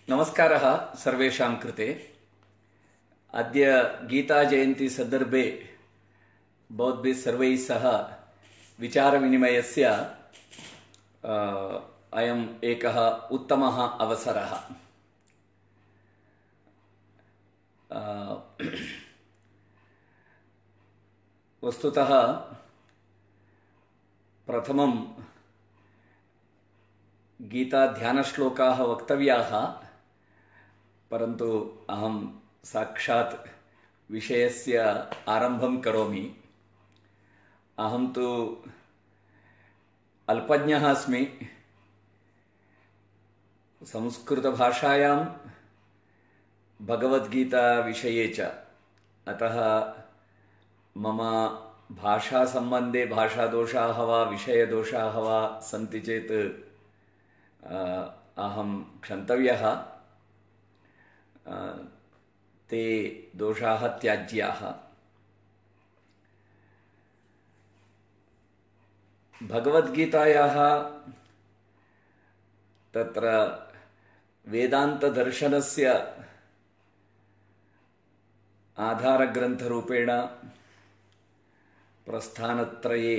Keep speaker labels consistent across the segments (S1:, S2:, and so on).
S1: नमस्कारः सर्वेषां कृते। अद्य गीताजयन्ती सन्दर्भे भवद्भिः सर्वैः सह विचारविनिमयस्य अयम् एकः उत्तमः अवसरः। वस्तुतः प्रथमं गीताध्यानश्लोकाः वक्तव्याः, परन्तु अहं साक्षात् विषयस्य आरम्भं करोमि। अहं तु अल्पज्ञः अस्मि। संस्कृतभाषायां भगवद्गीताविषये च, अतः मम भाषासम्बन्धे भाषादोषाः वा विषयदोषाः वा सन्ति चेत् अहं क्षन्तव्यः। ते दोषाः त्याज्याः। भगवद्गीतायाः तत्र वेदान्तदर्शनस्य आधारग्रन्थरूपेण प्रस्थानत्रये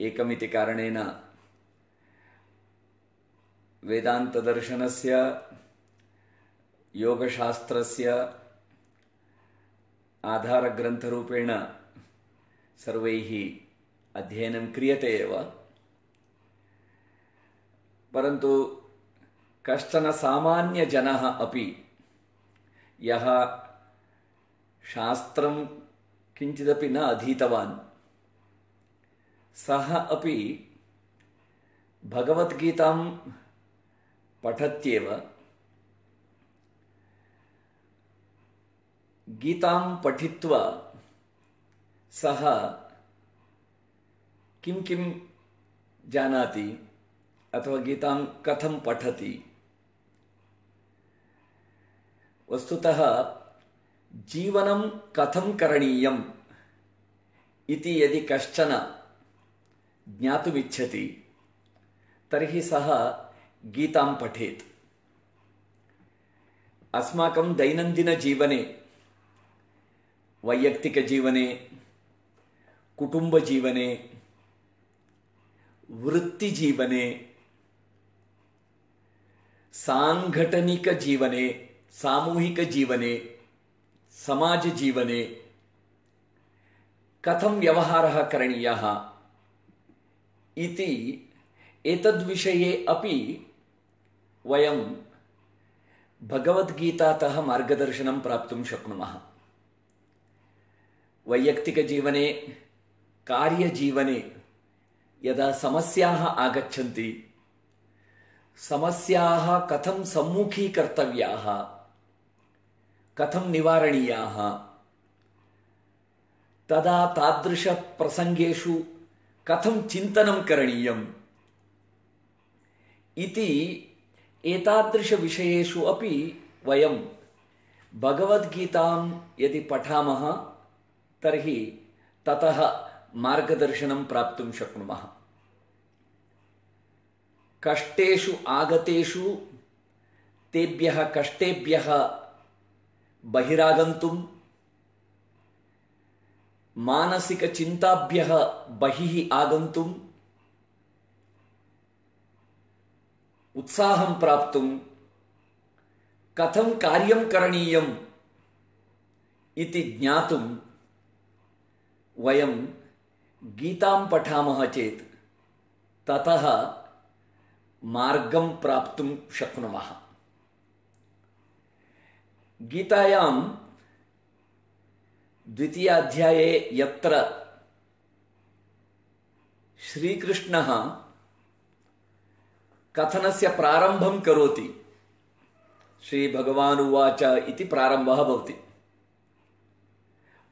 S1: एकमिति कारणेन वेदान्तदर्शनस्य योगशास्त्रस्य आधारग्रन्थरूपेण सर्वैः अध्ययनं क्रियते एव, परन्तु कश्चन सामान्यजनः अपि यः शास्त्रं किञ्चिदपि न अधीतवान्, सः अपि भगवद्गीतां पठत्येव। गीतां पठित्वा सः किं किं जानाति अथवा गीतां कथं पठति। वस्तुतः जीवनं कथं करणीयम् इति यदि कश्चन ज्ञातुमिच्छति तर्हि सः गीतां पठेत्। अस्माकं दैनन्दिनजीवने, वैयक्तिकजीवने, कुटुम्बजीवने, वृत्तिजीवने, सांघटनिकजीवने, सामूहिकजीवने, समाजजीवने कथं व्यवहारः करणीयः इति एतद्विषये अपि वयं भगवद्गीतातः मार्गदर्शनं प्राप्तुं शक्नुमः। वैयक्तिकजीवने, कार्यजीवने यदा समस्याः आगच्छन्ति, समस्याः कथं सम्मुखीकर्तव्याः, कथं निवारणीयाः, तदा तादृशप्रसङ्गेषु कथं चिन्तनं करणीयम् इति एतादृशविषयेषु अपि वयं भगवद्गीतां यदि पठामः तर्हि ततः मार्गदर्शनं प्राप्तुं शक्नुमः। कष्टेषु आगतेषु तेभ्यः कष्टेभ्यः बहिरागन्तुं, मानसिकचिन्ताभ्यः बहिः आगन्तुं, उत्साहं प्राप्तुं, कथं कार्यं करणीयम् इति ज्ञातुं वयं गीतां पठामः चेत् ततः मार्गं प्राप्तुं शक्नुमः। गीतायां द्वितीयाध्याये यत्र श्रीकृष्णः कथनस्य प्रारम्भं करोति, श्रीभगवानुवाच इति प्रारम्भः भवति।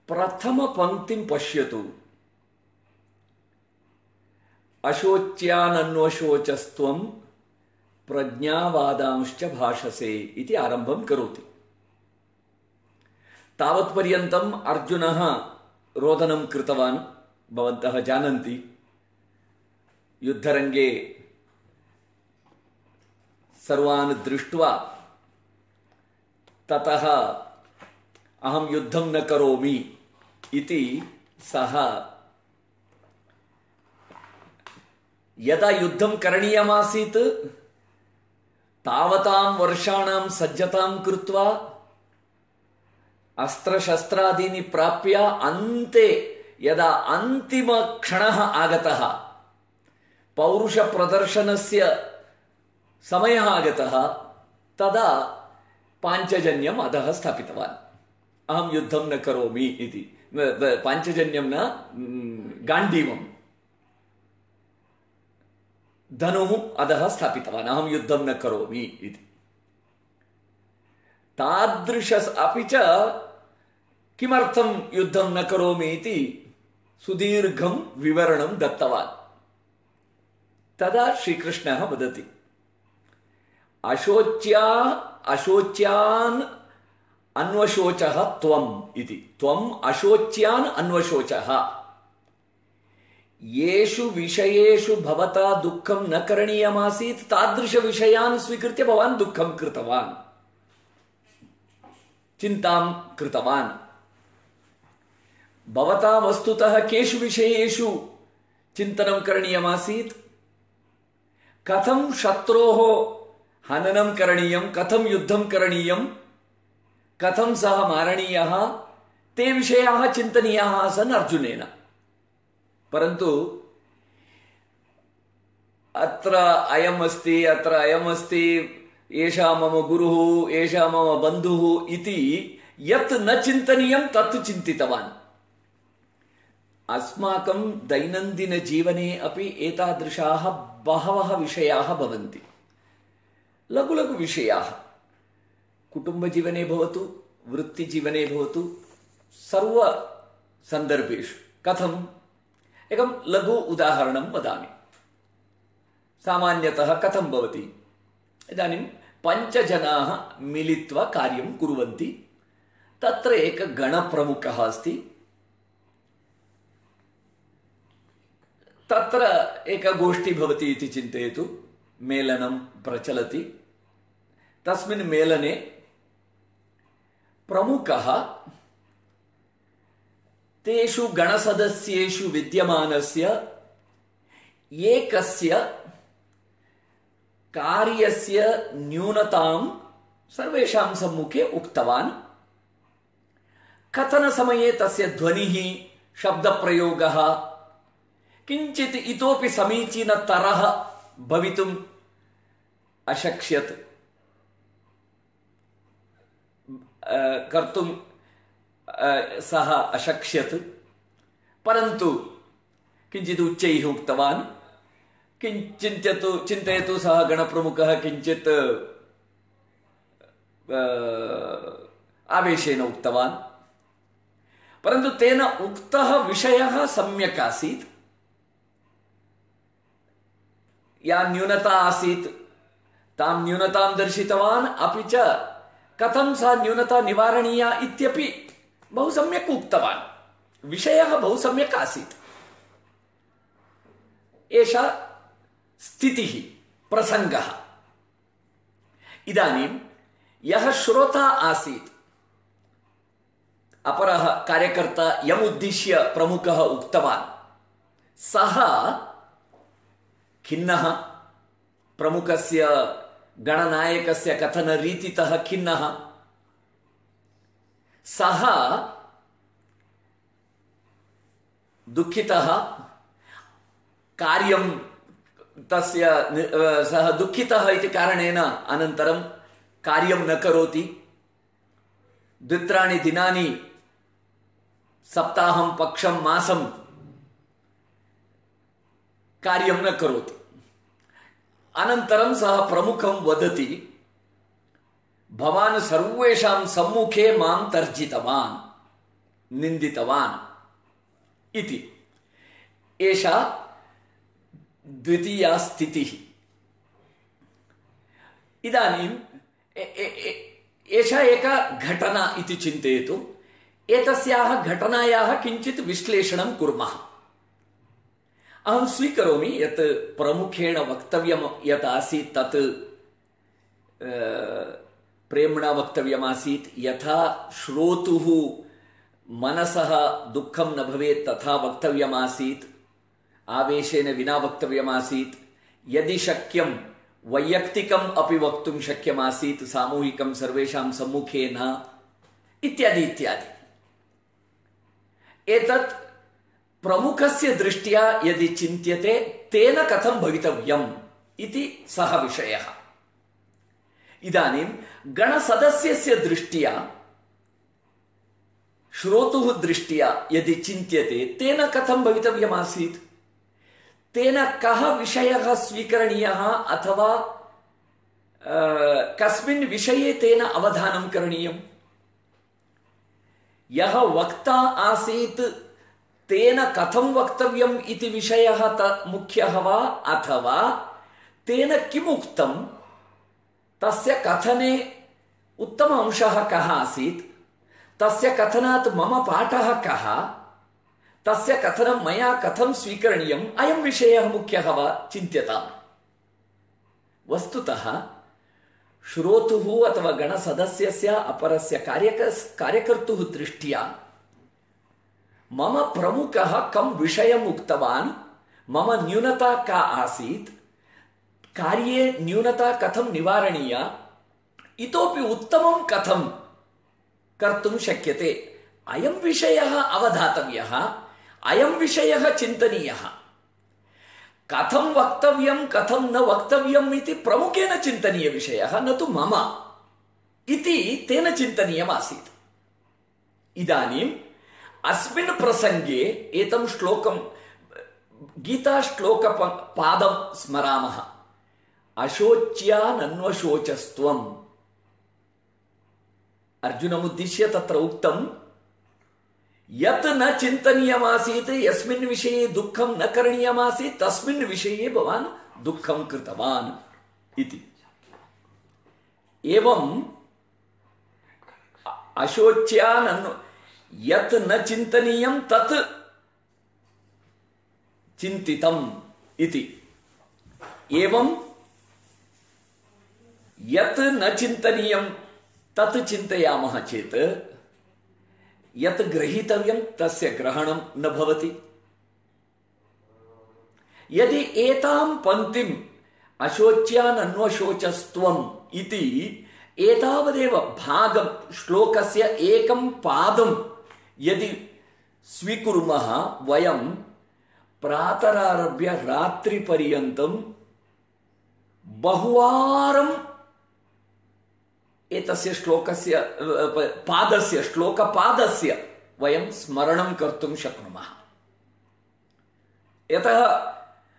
S1: प्रथमपङ्क्तिं पश्यतु। अशोच्यानन्वशोचस्त्वं प्रज्ञावादांश्च भाषसे इति आरम्भं करोति। तावत्पर्यन्तम् अर्जुनः रोदनं कृतवान्, भवन्तः जानन्ति। युद्धरङ्गे सर्वान् दृष्ट्वा ततः अहं युद्धं न करोमि इति सः यदा युद्धं करणीयमासीत् तावतां वर्षाणां सज्जतां कृत्वा अस्त्रशस्त्रादीनि प्राप्य अन्ते यदा अन्तिमक्षणः आगतः, पौरुषप्रदर्शनस्य समयः आगतः, तदा पाञ्चजन्यम् अधः स्थापितवान्। अहं युद्धं न करोमि इति। पाञ्चजन्यं न, गाण्डीवं धनुः अधः स्थापितवान्, अहं युद्धं न करोमि इति। तादृश अपि च किमर्थं युद्धं न करोमि इति सुदीर्घं विवरणं दत्तवान्। तदा श्रीकृष्णः वदति, अशोच्यान् अन्वशोचः त्वम् इति। त्वम् अशोच्यान् अन्वशोचः। येषु विषयेषु भवता दुःखं न करणीयमासीत् तादृशविषयान् स्वीकृत्य भवान् दुःखं कृतवान्, चिन्तां कृतवान्। भवता वस्तुतः केषु विषयेषु चिन्तनं करणीयमासीत्? कथं शत्रोः हननं करणीयं, कथं युद्धं करणीयं, कथं सः मारणीयः, ते विषयाः चिन्तनीयाः आसन् अर्जुनेन। परन्तु अत्र अयम् अस्ति, अत्र अयम् अस्ति, एषा मम गुरुः, एषा मम बन्धुः इति यत् न चिन्तनीयं तत् चिन्तितवान्। अस्माकं दैनन्दिनजीवने अपि एतादृशाः बहवः विषयाः भवन्ति। लघु लघु विषयाः, कुटुम्बजीवने भवतु, वृत्तिजीवने भवतु, सर्वसन्दर्भेषु। कथम्? एकं लघु उदाहरणं वदामि। सामान्यतः कथं भवति? इदानीं 5 जनाः मिलित्वा कार्यं कुर्वन्ति। तत्र एकः गणप्रमुखः अस्ति। तत्र एका गोष्ठी भवति इति चिन्तयतु, मेलनं प्रचलति। तस्मिन् मेलने प्रमुखः तेषु गणसदस्येषु विद्यमानस्य एकस्य कार्यस्य न्यूनतां सर्वेषां सम्मुखे उक्तवान्। कथनसमये तस्य ध्वनिः, शब्दप्रयोगः किञ्चित् इतोपि समीचीनतरः भवितुम् अशक्ष्यत्, कर्तुं सः अशक्ष्यत्। परन्तु किञ्चित् उच्चैः उक्तवान्। चिन्तयतु सः गणप्रमुखः किञ्चित् आवेशेन उक्तवान्, परन्तु तेन उक्तः विषयः सम्यक् आसीत्। या न्यूनता आसीत् तां न्यूनतां दर्शितवान्, अपि च कथं सा न्यूनता निवारणीया इत्यपि बहु सम्यक् उक्तवान्। विषयः बहु सम्यक् आसीत्। एषा स्थितिः, प्रसङ्गः। इदानीं यः श्रोता आसीत्, अपरः कार्यकर्ता यमुद्दिश्य प्रमुखः उक्तवान्, सः खिन्नः, प्रमुखस्य गणनायकस्य कथनरीतितः खिन्नः। सः दुःखितः, कार्यं तस्य सः दुःखितः इति कारणेन अनन्तरं कार्यं न करोति। 2-3 दिनानि, सप्ताहं, पक्षं, मासं कार्यं न करोति। अनन्तरं सः प्रमुखं वदति, भवान् सर्वेषां सम्मुखे मां तर्जितवान्, निन्दितवान् इति। एषा द्वितीया स्थितिः। इदानीं एषा एका घटना इति चिन्तयतु। एतस्याः घटनायाः किञ्चित् विश्लेषणं कुर्मः। अहं स्वीकरोमि यत् प्रमुखेण वक्तव्यं यत् आसीत् तत् प्रेम्णा वक्तव्यमासीत्। यथा श्रोतुः मनसः दुःखं न भवेत् तथा वक्तव्यमासीत्, आवेशेन विना वक्तव्यमासीत्। यदि शक्यं वैयक्तिकम् अपि वक्तुं शक्यमासीत्, सामूहिकं सर्वेषां सम्मुखे न, इत्यादि इत्यादि। एतत् प्रमुखस्य दृष्ट्या यदि चिन्त्यते तेन कथं भवितव्यम् इति सः विषयः। इदानीं गणसदस्यस्य दृष्ट्या, श्रोतुः दृष्ट्या यदि चिन्त्यते तेन कथं भवितव्यमासीत्, तेन कः विषयः स्वीकरणीयः अथवा कस्मिन् विषये तेन अवधानं करणीयम्, यः वक्ता आसीत् तेन कथं वक्तव्यम् इति विषयः मुख्यः वा, अथवा तेन किम् उक्तं तस्य कथने उत्तम अंशः कः आसीत्, तस्य कथनात् मम पाठः कः, तस्य कथनं मया कथं स्वीकरणीयम्, अयं विषयः मुख्यः वा चिन्त्यताम्। वस्तुतः श्रोतुः अथवा गणसदस्यस्य अपरस्य कार्यकर्तुः दृष्ट्या मम प्रमुखः कं विषयम् उक्तवान्, मम न्यूनता का आसीत्, कार्ये न्यूनता कथं निवारणीया, इतोपि उत्तमं कथं कर्तुं शक्यते, अयं विषयः अवधातव्यः, अयं विषयः चिन्तनीयः। कथं वक्तव्यं कथं न वक्तव्यम् इति प्रमुखेन चिन्तनीयविषयः, न तु मम इति तेन चिन्तनीयमासीत्। इदानीम् अस्मिन् प्रसङ्गे एतं श्लोकं गीताश्लोकपादं स्मरामः। अशोच्यानन्वशोचस्त्वम्, अर्जुनमुद्दिश्य तत्र उक्तं यत् न चिन्तनीयमासीत्, यस्मिन् विषये दुःखं न करणीयमासीत् तस्मिन् विषये भवान् दुःखं कृतवान् इति। एवं यत् न चिन्तनीयं तत् चिन्तितम् इति। एवं यत् न चिन्तनीयं तत् चिन्तयामः चेत् यत् ग्रहीतव्यं तस्य ग्रहणं न भवति। यदि एतां पङ्क्तिम् अशोच्यानन्वशोचस्त्वम् इति एतावदेव भागं श्लोकस्य एकं पादं यदि स्वीकुर्मः, वयं प्रातरारभ्य रात्रिपर्यन्तं बहुवारं एतस्य श्लोकस्य पादस्य श्लोकपादस्य वयं स्मरणं कर्तुं शक्नुमः। यतः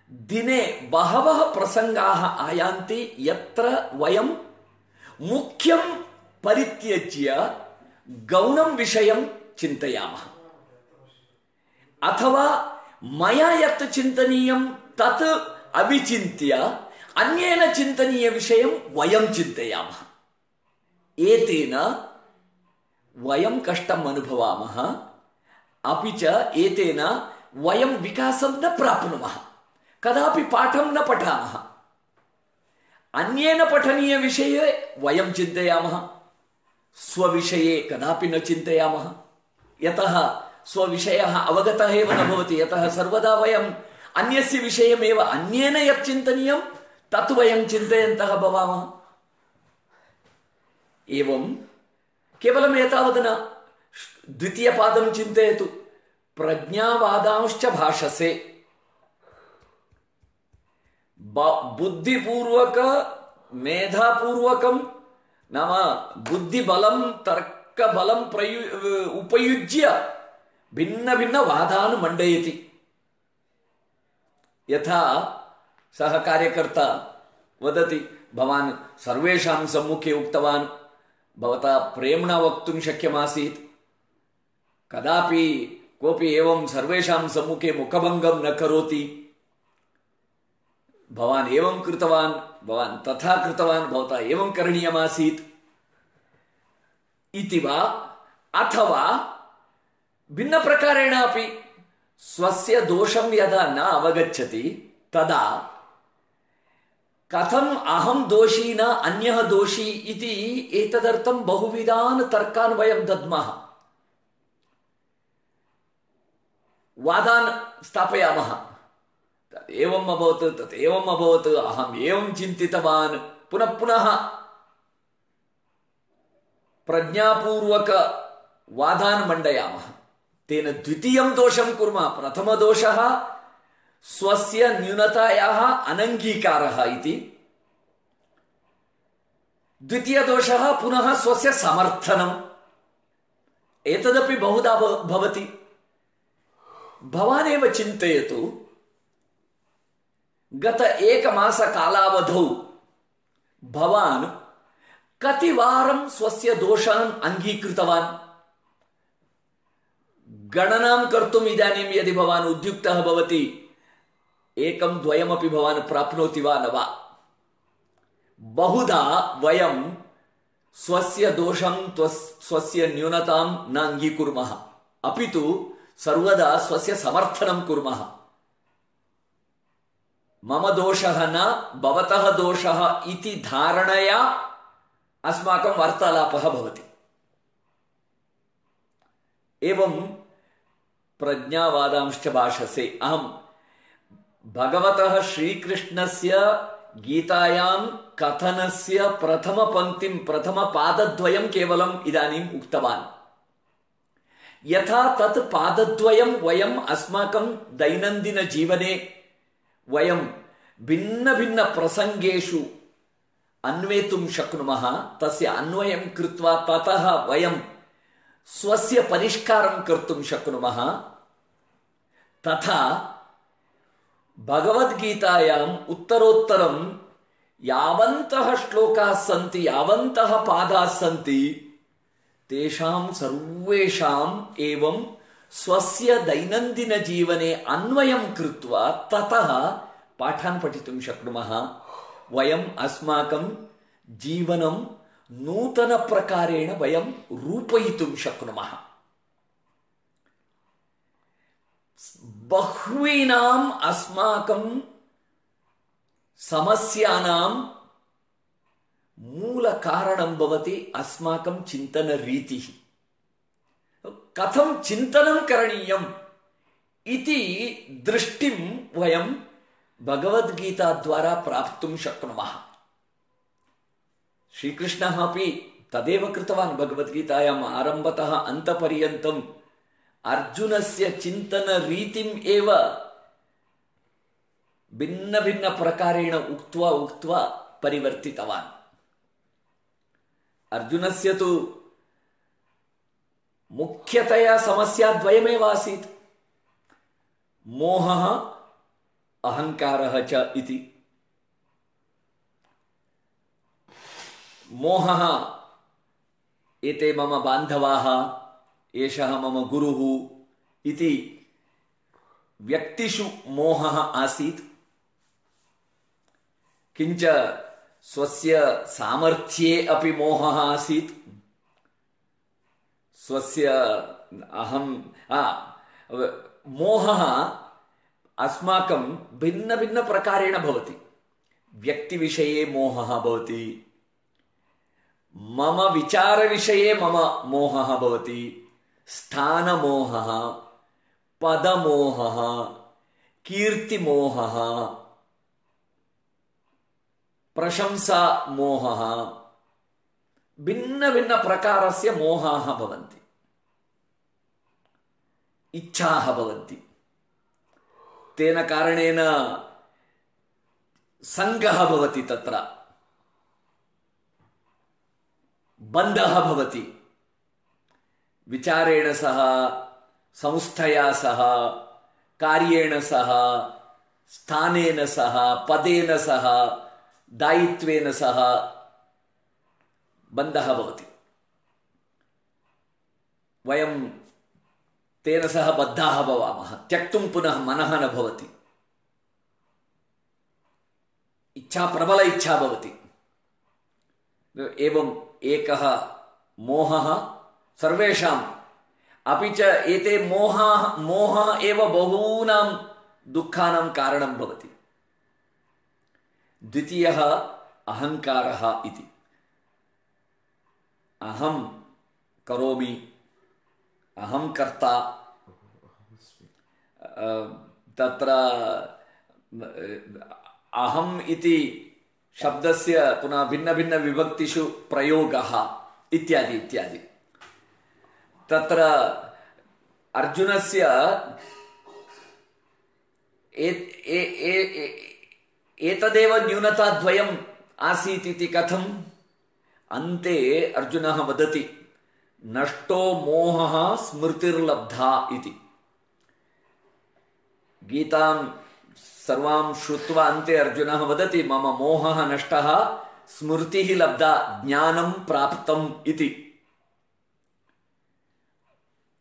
S1: दिने बहवः प्रसङ्गाः आयान्ति यत्र वयं मुख्यं परित्यज्य गौणं विषयं चिन्तयामः, अथवा मया यत् चिन्तनीयं तत् अविचिन्त्य अन्येन चिन्तनीयविषयं वयं चिन्तयामः। एतेन वयं कष्टम् अनुभवामः, अपि च एतेन वयं विकासं न प्राप्नुमः, कदापि पाठं न पठामः। अन्येन पठनीयविषये वयं चिन्तयामः, स्वविषये कदापि न चिन्तयामः। यतः स्वविषयः अवगतः एव न भवति, यतः सर्वदा वयम् अन्यस्य विषयमेव, अन्येन यत् चिन्तनीयं तत् वयं चिन्तयन्तः भवामः। एवं केवलम् एतावत् न, द्वितीयपादं चिन्तयतु। प्रज्ञावादांश्च भाषसे, बुद्धिपूर्वक मेधापूर्वकं नाम बुद्धिबलं तर्कबलं उपयुज्य भिन्न भिन्न वादान् मण्डयति। यथा सः कार्यकर्ता वदति, भवान् सर्वेषां सम्मुखे उक्तवान्, भवता प्रेम्णा वक्तुं शक्यमासीत्, कदापि कोऽपि एवं सर्वेषां सम्मुखे मुखभङ्गं न करोति, भवान् एवं कृतवान्, भवान् तथा कृतवान्, भवता एवं करणीयमासीत् इति वा, अथवा भिन्नप्रकारेण अपि स्वस्य दोषं यदा न अवगच्छति तदा कथम् अहं दोषी न अन्यः दोषी इति एतदर्थं बहुविधान् तर्कान् वयं दद्मः, वादान् स्थापयामः। तत् एवम् अभवत्, तत् एवम् अभवत्, अहम् एवं चिन्तितवान्, पुनः पुनः प्रज्ञापूर्वक वादान् मण्डयामः। तेन द्वितीयं दोषं कुर्मः। प्रथमदोषः स्वस्य न्यूनतायाः अनङ्गीकारः इति, द्वितीयदोषः पुनः स्वस्य समर्थनम्। एतदपि बहुधा भवति। भवानेव चिन्तयतु, गत एकमासकालावधौ भवान् कतिवारं स्वस्य दोषान् अङ्गीकृतवान्? गणनां कर्तुम् इदानीं यदि भवान् उद्युक्तः भवति, एकं द्वयमपि भवान् प्राप्नोति वा न वा? बहुधा वयं स्वस्य दोषं स्वस्य न्यूनतां न अङ्गीकुर्मः, अपि तु सर्वदा स्वस्य समर्थनं कुर्मः। मम दोषः न भवतः दोषः इति धारणया अस्माकं वार्तालापः भवति। एवं प्रज्ञावादांश्च भाषसे। अहं भगवतः श्रीकृष्णस्य गीतायां कथनस्य प्रथमपङ्क्तिं प्रथमपादद्वयं केवलम् इदानीम् उक्तवान्। यथा तत् पादद्वयं वयम् अस्माकं दैनन्दिनजीवने वयं भिन्नभिन्नप्रसङ्गेषु अन्वेतुं शक्नुमः, तस्य अन्वयं कृत्वा ततः वयं स्वस्य परिष्कारं कर्तुं शक्नुमः, तथा भगवद्गीतायाम् उत्तरोत्तरं यावन्तः श्लोकाः सन्ति, यावन्तः पादाः सन्ति, तेषां सर्वेषाम् एवं स्वस्य दैनन्दिनजीवने अन्वयं कृत्वा ततः पाठान् पठितुं शक्नुमः। वयम् अस्माकं जीवनं नूतनप्रकारेण वयं रूपयितुं शक्नुमः। बह्वीनाम् अस्माकं समस्यानां मूलकारणं भवति अस्माकं चिन्तनरीतिः। कथं चिन्तनं करणीयम् इति दृष्टिं वयं भगवद्गीताद्वारा प्राप्तुं शक्नुमः। श्रीकृष्णः अपि तदेव कृतवान्। भगवद्गीतायाम् आरम्भतः अन्तपर्यन्तम् अर्जुनस्य चिन्तनरीतिम् एव भिन्नभिन्नप्रकारेण उक्त्वा उक्त्वा परिवर्तितवान्। अर्जुनस्य तु मुख्यतया समस्या द्वयमेव आसीत्, मोहः अहङ्कारः च इति। मोहः, एते मम बान्धवाः, एषः मम गुरुः इति व्यक्तिषु मोहः आसीत्। किञ्च स्वस्य सामर्थ्ये अपि मोहः आसीत्। स्वस्य मोहः अस्माकं भिन्नभिन्नप्रकारेण भवति। व्यक्तिविषये मोहः भवति, मम विचारविषये मम मोहः भवति, स्थानमोहः, पदमोहः, कीर्तिमोहः, प्रशंसामोहः, भिन्नभिन्नप्रकारस्य मोहाः भवन्ति। इच्छाः भवन्ति। तेन कारणेन सङ्गः भवति, तत्र बन्धः भवति। विचारेण सह, संस्थया सह, कार्येण सह, स्थानेन सह, पदेन सह, दायित्वेन सह बन्धः भवति। वयं तेन सह बद्धाः भवामः। त्यक्तुं पुनः मनः न भवति। इच्छा, प्रबल इच्छा भवति। एवम् एकः मोहः सर्वेषाम्, अपि च एते मोहः एव बहूनां दुःखानां कारणं भवति। द्वितीयः अहङ्कारः इति। अहं करोमि, अहं कर्ता, तत्र अहम् इति शब्दस्य पुनः भिन्नभिन्नविभक्तिषु प्रयोगः इत्यादि इत्यादि। तत्र अर्जुनस्य एतदेव न्यूनताद्वयम् आसीत् इति कथम्? अन्ते अर्जुनः वदति नष्टो मोहः स्मृतिर्लब्धा इति। गीतां सर्वां श्रुत्वा अन्ते अर्जुनः वदति मम मोहः नष्टः, स्मृतिः लब्धा, ज्ञानं प्राप्तम् इति।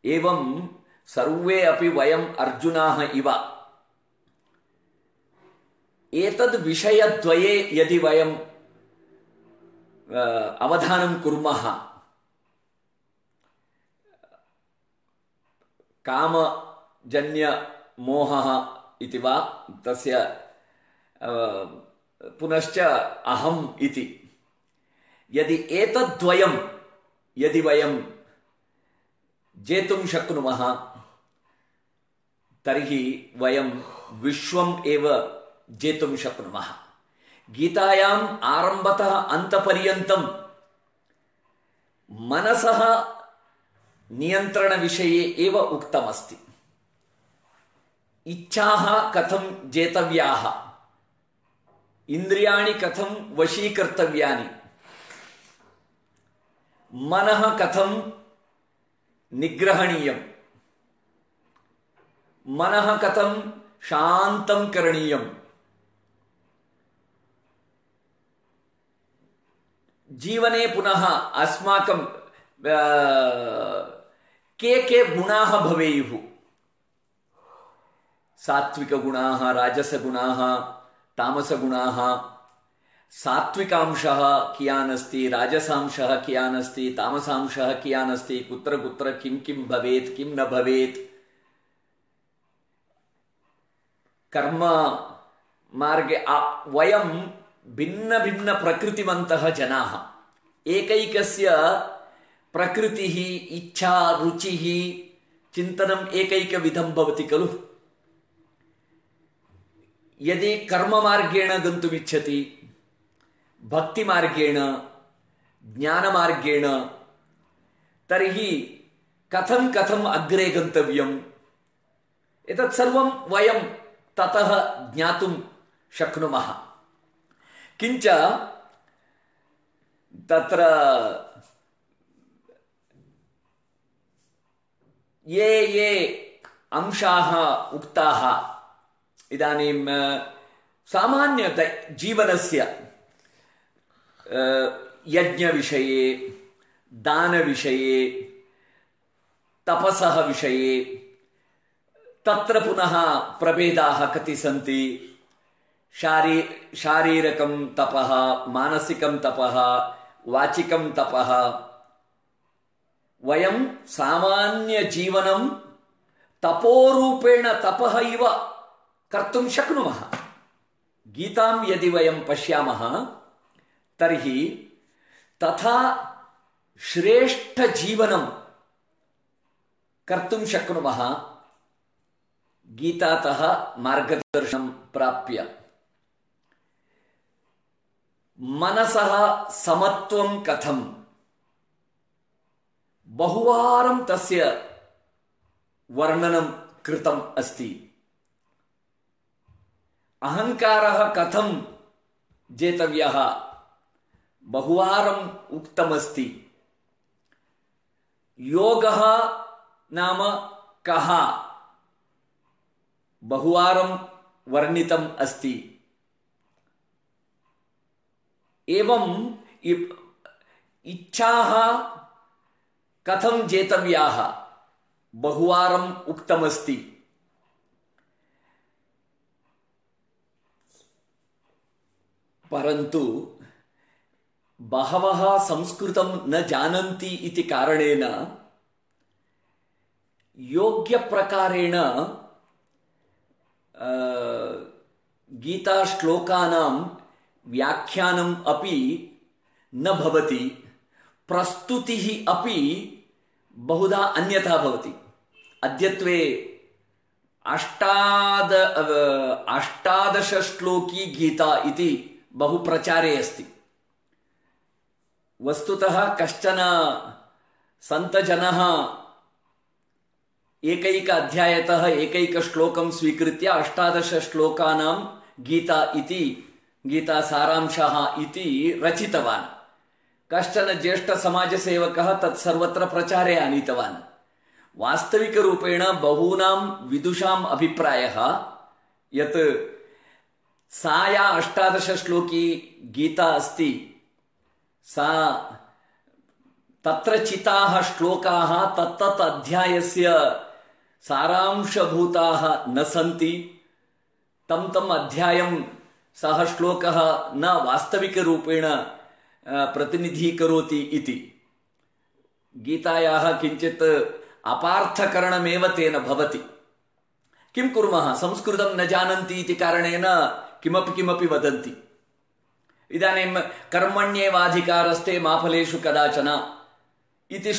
S1: एवं सर्वे अपि वयम् अर्जुनाः इव एतद् विषयद्वये यदि वयं अवधानं कुर्मः, कामजन्य मोहः इति वा तस्य पुनश्च अहम् इति, यदि एतद्वयं यदि वयं जेतुं शक्नुमः तर्हि वयं विश्वम् एव जेतुं शक्नुमः। गीतायाम् आरम्भतः अन्तपर्यन्तं मनसः नियन्त्रणविषये एव उक्तमस्ति। इच्छाः कथं जेतव्याः, इन्द्रियाणि कथं वशीकर्तव्यानि, मनः कथं निग्रहणीयं, मनः कथं शान्तं करणीयं, जीवने पुनः अस्माकं के गुणाः भवेयुः, सात्विकगुणाः, राजसगुणाः, तामसगुणाः, सात्विकांशः कियान् अस्ति, राजसांशः कियान् अस्ति, तामसांशः कियान् अस्ति, कुत्र कुत्र किं किं भवेत्, किं न भवेत्, कर्म मार्गे वयं भिन्न भिन्न प्रकृतिवन्तः जनाः। एकैकस्य प्रकृतिः, इच्छा, रुचिः, चिन्तनम् एकैकविधं भवति खलु। यदि कर्ममार्गेण गन्तुमिच्छति, भक्तिमार्गेण, ज्ञानमार्गेण, तर्हि कथं कथम् अग्रे गन्तव्यम्, एतत् सर्वं वयं ततः ज्ञातुं शक्नुमः। किञ्च तत्र ये अंशाः उक्ताः इदानीं सामान्य जीवनस्य यज्ञविषये, दानविषये, तपसः विषये, तत्र पुनः प्रभेदाः कति सन्ति। शारीरकं तपः, मानसिकं तपः, वाचिकं तपः। वयं सामान्यजीवनं तपोरूपेण तपः इव कर्तुं शक्नुमः। गीतां यदि वयं पश्यामः तर्हि तथा श्रेष्ठजीवनं कर्तुं शक्नुमः गीतातः मार्गदर्शनं प्राप्य। मनसः समत्वं कथं, बहुवारं तस्य वर्णनं कृतम् अस्ति। अहङ्कारः कथं जेतव्यः, बहुवारम् उक्तमस्ति। योगः नाम कः, बहुवारं वर्णितम् अस्ति। एवं इच्छाः कथं जेतव्याः, बहुवारम् उक्तमस्ति। परन्तु बहवः संस्कृतं न जानन्ति इति कारणेन योग्यप्रकारेण गीताश्लोकानां व्याख्यानम् अपि न भवति, प्रस्तुतिः अपि बहुधा अन्यथा भवति। अद्यत्वे 18 श्लोकी गीता इति बहु प्रचारे अस्ति। वस्तुतः कश्चन सन्तजनः एकैक अध्यायतः एकैक श्लोकं स्वीकृत्य 18 श्लोकानां गीता इति गीता सारांशः इति रचितवान्। कश्चन ज्येष्ठ समाजसेवकः तत् सर्वत्र प्रचारे आनीतवान्। वास्तविकरूपेण बहूनां विदुषाम् अभिप्रायः यत् सा या 18 श्लोकी गीता अस्ति सा तत्र चिताः श्लोकाः तत्तत् अध्यायस्य सारांशभूताः न सन्ति। तम् अध्यायं सः श्लोकः न वास्तविकरूपेण प्रतिनिधीकरोति इति। गीतायाः किञ्चित् अपार्थकरणमेव तेन भवति। किं कुर्मः, संस्कृतं न जानन्ति इति कारणेन किमपि वदन्ति। इदानीं कर्मण्येवाधिकारस्ते मा फलेषु कदाचन इति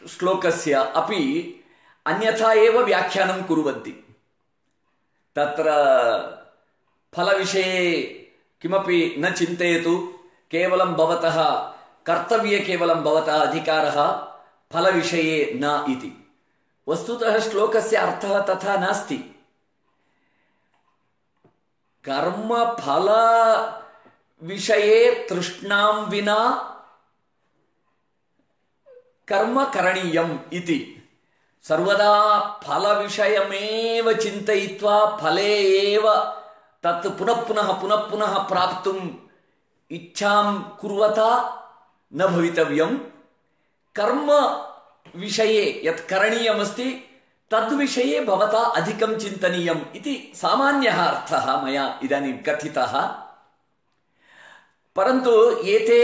S1: श्लोकस्य अपि अन्यथा एव व्याख्यानं कुर्वन्ति। तत्र फलविषये किमपि न चिन्तयतु, केवलं भवतः कर्तव्ये केवलं भवतः अधिकारः, फलविषये न इति। वस्तुतः श्लोकस्य अर्थः तथा नास्ति। कर्मफल विषये तृष्णां विना कर्म करणीयम् इति। सर्वदा फलविषयमेव चिन्तयित्वा फले एव तत् पुनः प्राप्तुम् इच्छां कुर्वता न भवितव्यम्। कर्म विषये यत् करणीयमस्ति तद्विषये भवता अधिकं चिन्तनीयम् इति सामान्यः अर्थः मया इदानीं कथितः। परन्तु एते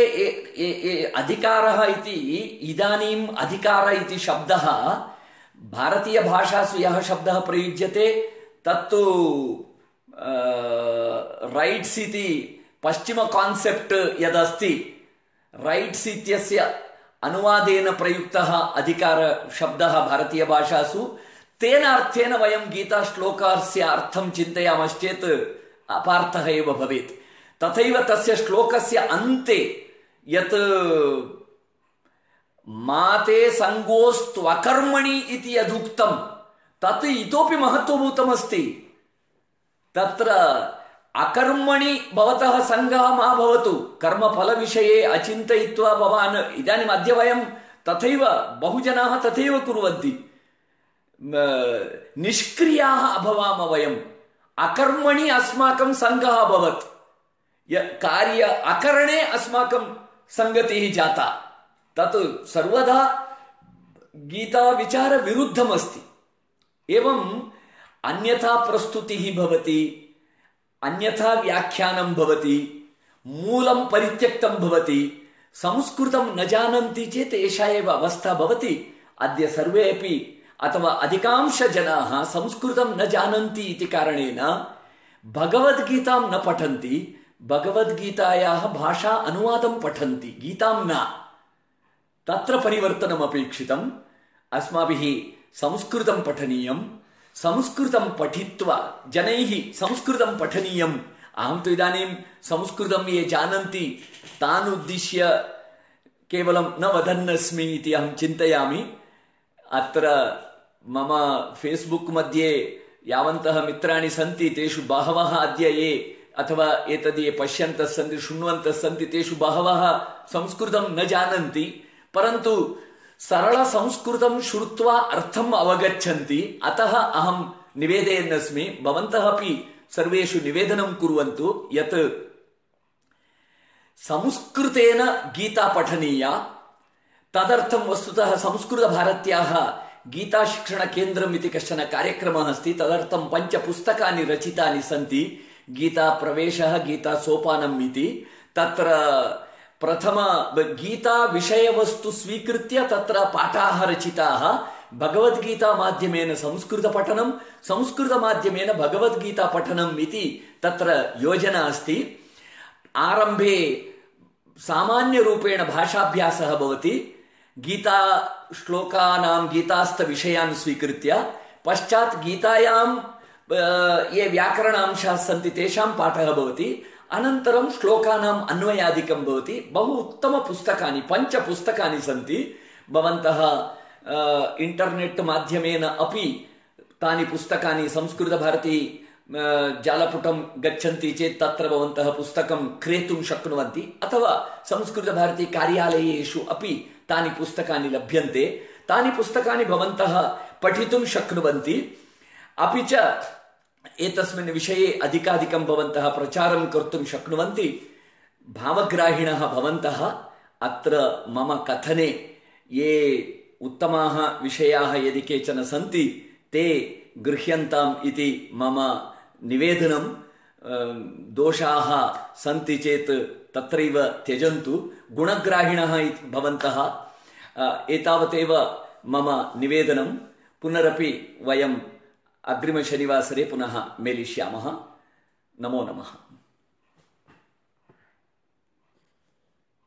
S1: अधिकारः इति, इदानीम् अधिकार इति शब्दः भारतीयभाषासु यः शब्दः प्रयुज्यते तत्तु रैट्स् इति पश्चिम कान्सेप्ट् यदस्ति, रैट्स् इत्यस्य अनुवादेन प्रयुक्तः अधिकार शब्दः भारतीयभाषासु, तेन अर्थेन वयं गीताश्लोकस्य अर्थं चिन्तयामश्चेत् अपार्थः एव भवेत्। तथैव तस्य श्लोकस्य अन्ते यत् माते संगोस्त्वकर्मणि इति यदुक्तं तत् इतोपि महत्त्वभूतमस्ति। तत्र अकर्मणि भवतः संगः मा भवतु, कर्मफलविषये अचिन्तयित्वा भवान्, इदानीम् अद्य वयं तथैव बहुजनाः तथैव कुर्वन्ति, निष्क्रियाः अभवाम वयम्, अकर्मणि अस्माकं संगः अभवत्, कार्य अकरणे अस्माकं संगतिः जाता। तत् सर्वदा गीताविचार विरुद्धमस्ति। एवम् अन्यथा प्रस्तुतिः भवति, अन्यथा व्याख्यानं भवति, मूलं परित्यक्तं भवति। संस्कृतं न जानन्ति चेत् एषा एव अवस्था भवति। अद्य सर्वे अपि अथवा अधिकांशजनाः संस्कृतं न जानन्ति इति कारणेन भगवद्गीतां न पठन्ति, भगवद्गीतायाः भाषा अनुवादं पठन्ति, गीतां न। तत्र परिवर्तनम् अपेक्षितम्। अस्माभिः संस्कृतं पठनीयं, संस्कृतं पठित्वा जनैः संस्कृतं पठनीयम्। अहं तु इदानीं संस्कृतं ये जानन्ति तान् उद्दिश्य केवलं न वदन्नस्मि इति अहं चिन्तयामि। अत्र मम फेस्बुक मध्ये यावन्तः मित्राणि सन्ति तेषु बहवः अद्य ये अथवा एतद् ये पश्यन्तः सन्ति, शृण्वन्तः सन्ति, तेषु बहवः संस्कृतं न जानन्ति, परन्तु सरलसंस्कृतं श्रुत्वा अर्थम् अवगच्छन्ति। अतः अहं निवेदयन्नस्मि, भवन्तः अपि सर्वेषु निवेदनं कुर्वन्तु यत् संस्कृतेन गीता पठनीया। तदर्थं वस्तुतः संस्कृतभारत्याः गीताशिक्षणकेन्द्रम् इति कश्चन कार्यक्रमः अस्ति। तदर्थं 5 पुस्तकानि रचितानि सन्ति। गीताप्रवेशः, गीतासोपानम् इति। तत्र प्रथम गीता विषयवस्तु स्वीकृत्य तत्र पाठाः रचिताः। भगवद्गीता माध्यमेन संस्कृतपठनं, संस्कृतमाध्यमेन भगवद्गीता पठनम् इति तत्र योजना अस्ति। आरम्भे सामान्यरूपेण भाषाभ्यासः भवति, गीता श्लोकानां गीतास्थविषयान् स्वीकृत्य, पश्चात् गीतायां ये व्याकरणांशाः सन्ति तेषां पाठः भवति, अनन्तरं श्लोकानाम् अन्वयादिकं भवति। बहु उत्तमपुस्तकानि 5 पुस्तकानि सन्ति। भवन्तः इंटरनेट माध्यमेन अपि तानि पुस्तकानि संस्कृतभारती जालपुटं गच्छन्ति चेत् तत्र भवन्तः पुस्तकं क्रेतुं शक्नुवन्ति, अथवा संस्कृतभारती कार्यालयेषु अपि तानि पुस्तकानि लभ्यन्ते। तानि पुस्तकानि भवन्तः पठितुं शक्नुवन्ति। अपि च एतस्मिन् विषये अधिकाधिकं भवन्तः प्रचारं कर्तुं शक्नुवन्ति। भावग्राहिणः भवन्तः अत्र मम कथने ये उत्तमाः विषयाः यदि केचन सन्ति ते गृह्यन्ताम् इति मम निवेदनं। दोषाः सन्ति चेत् तत्रैव त्यजन्तु। गुणग्राहिणः भवन्तः एतावदेव मम निवेदनं। पुनरपि वयम् अग्रिमशनिवासरे पुनः मेलिष्यामः। नमो नमः।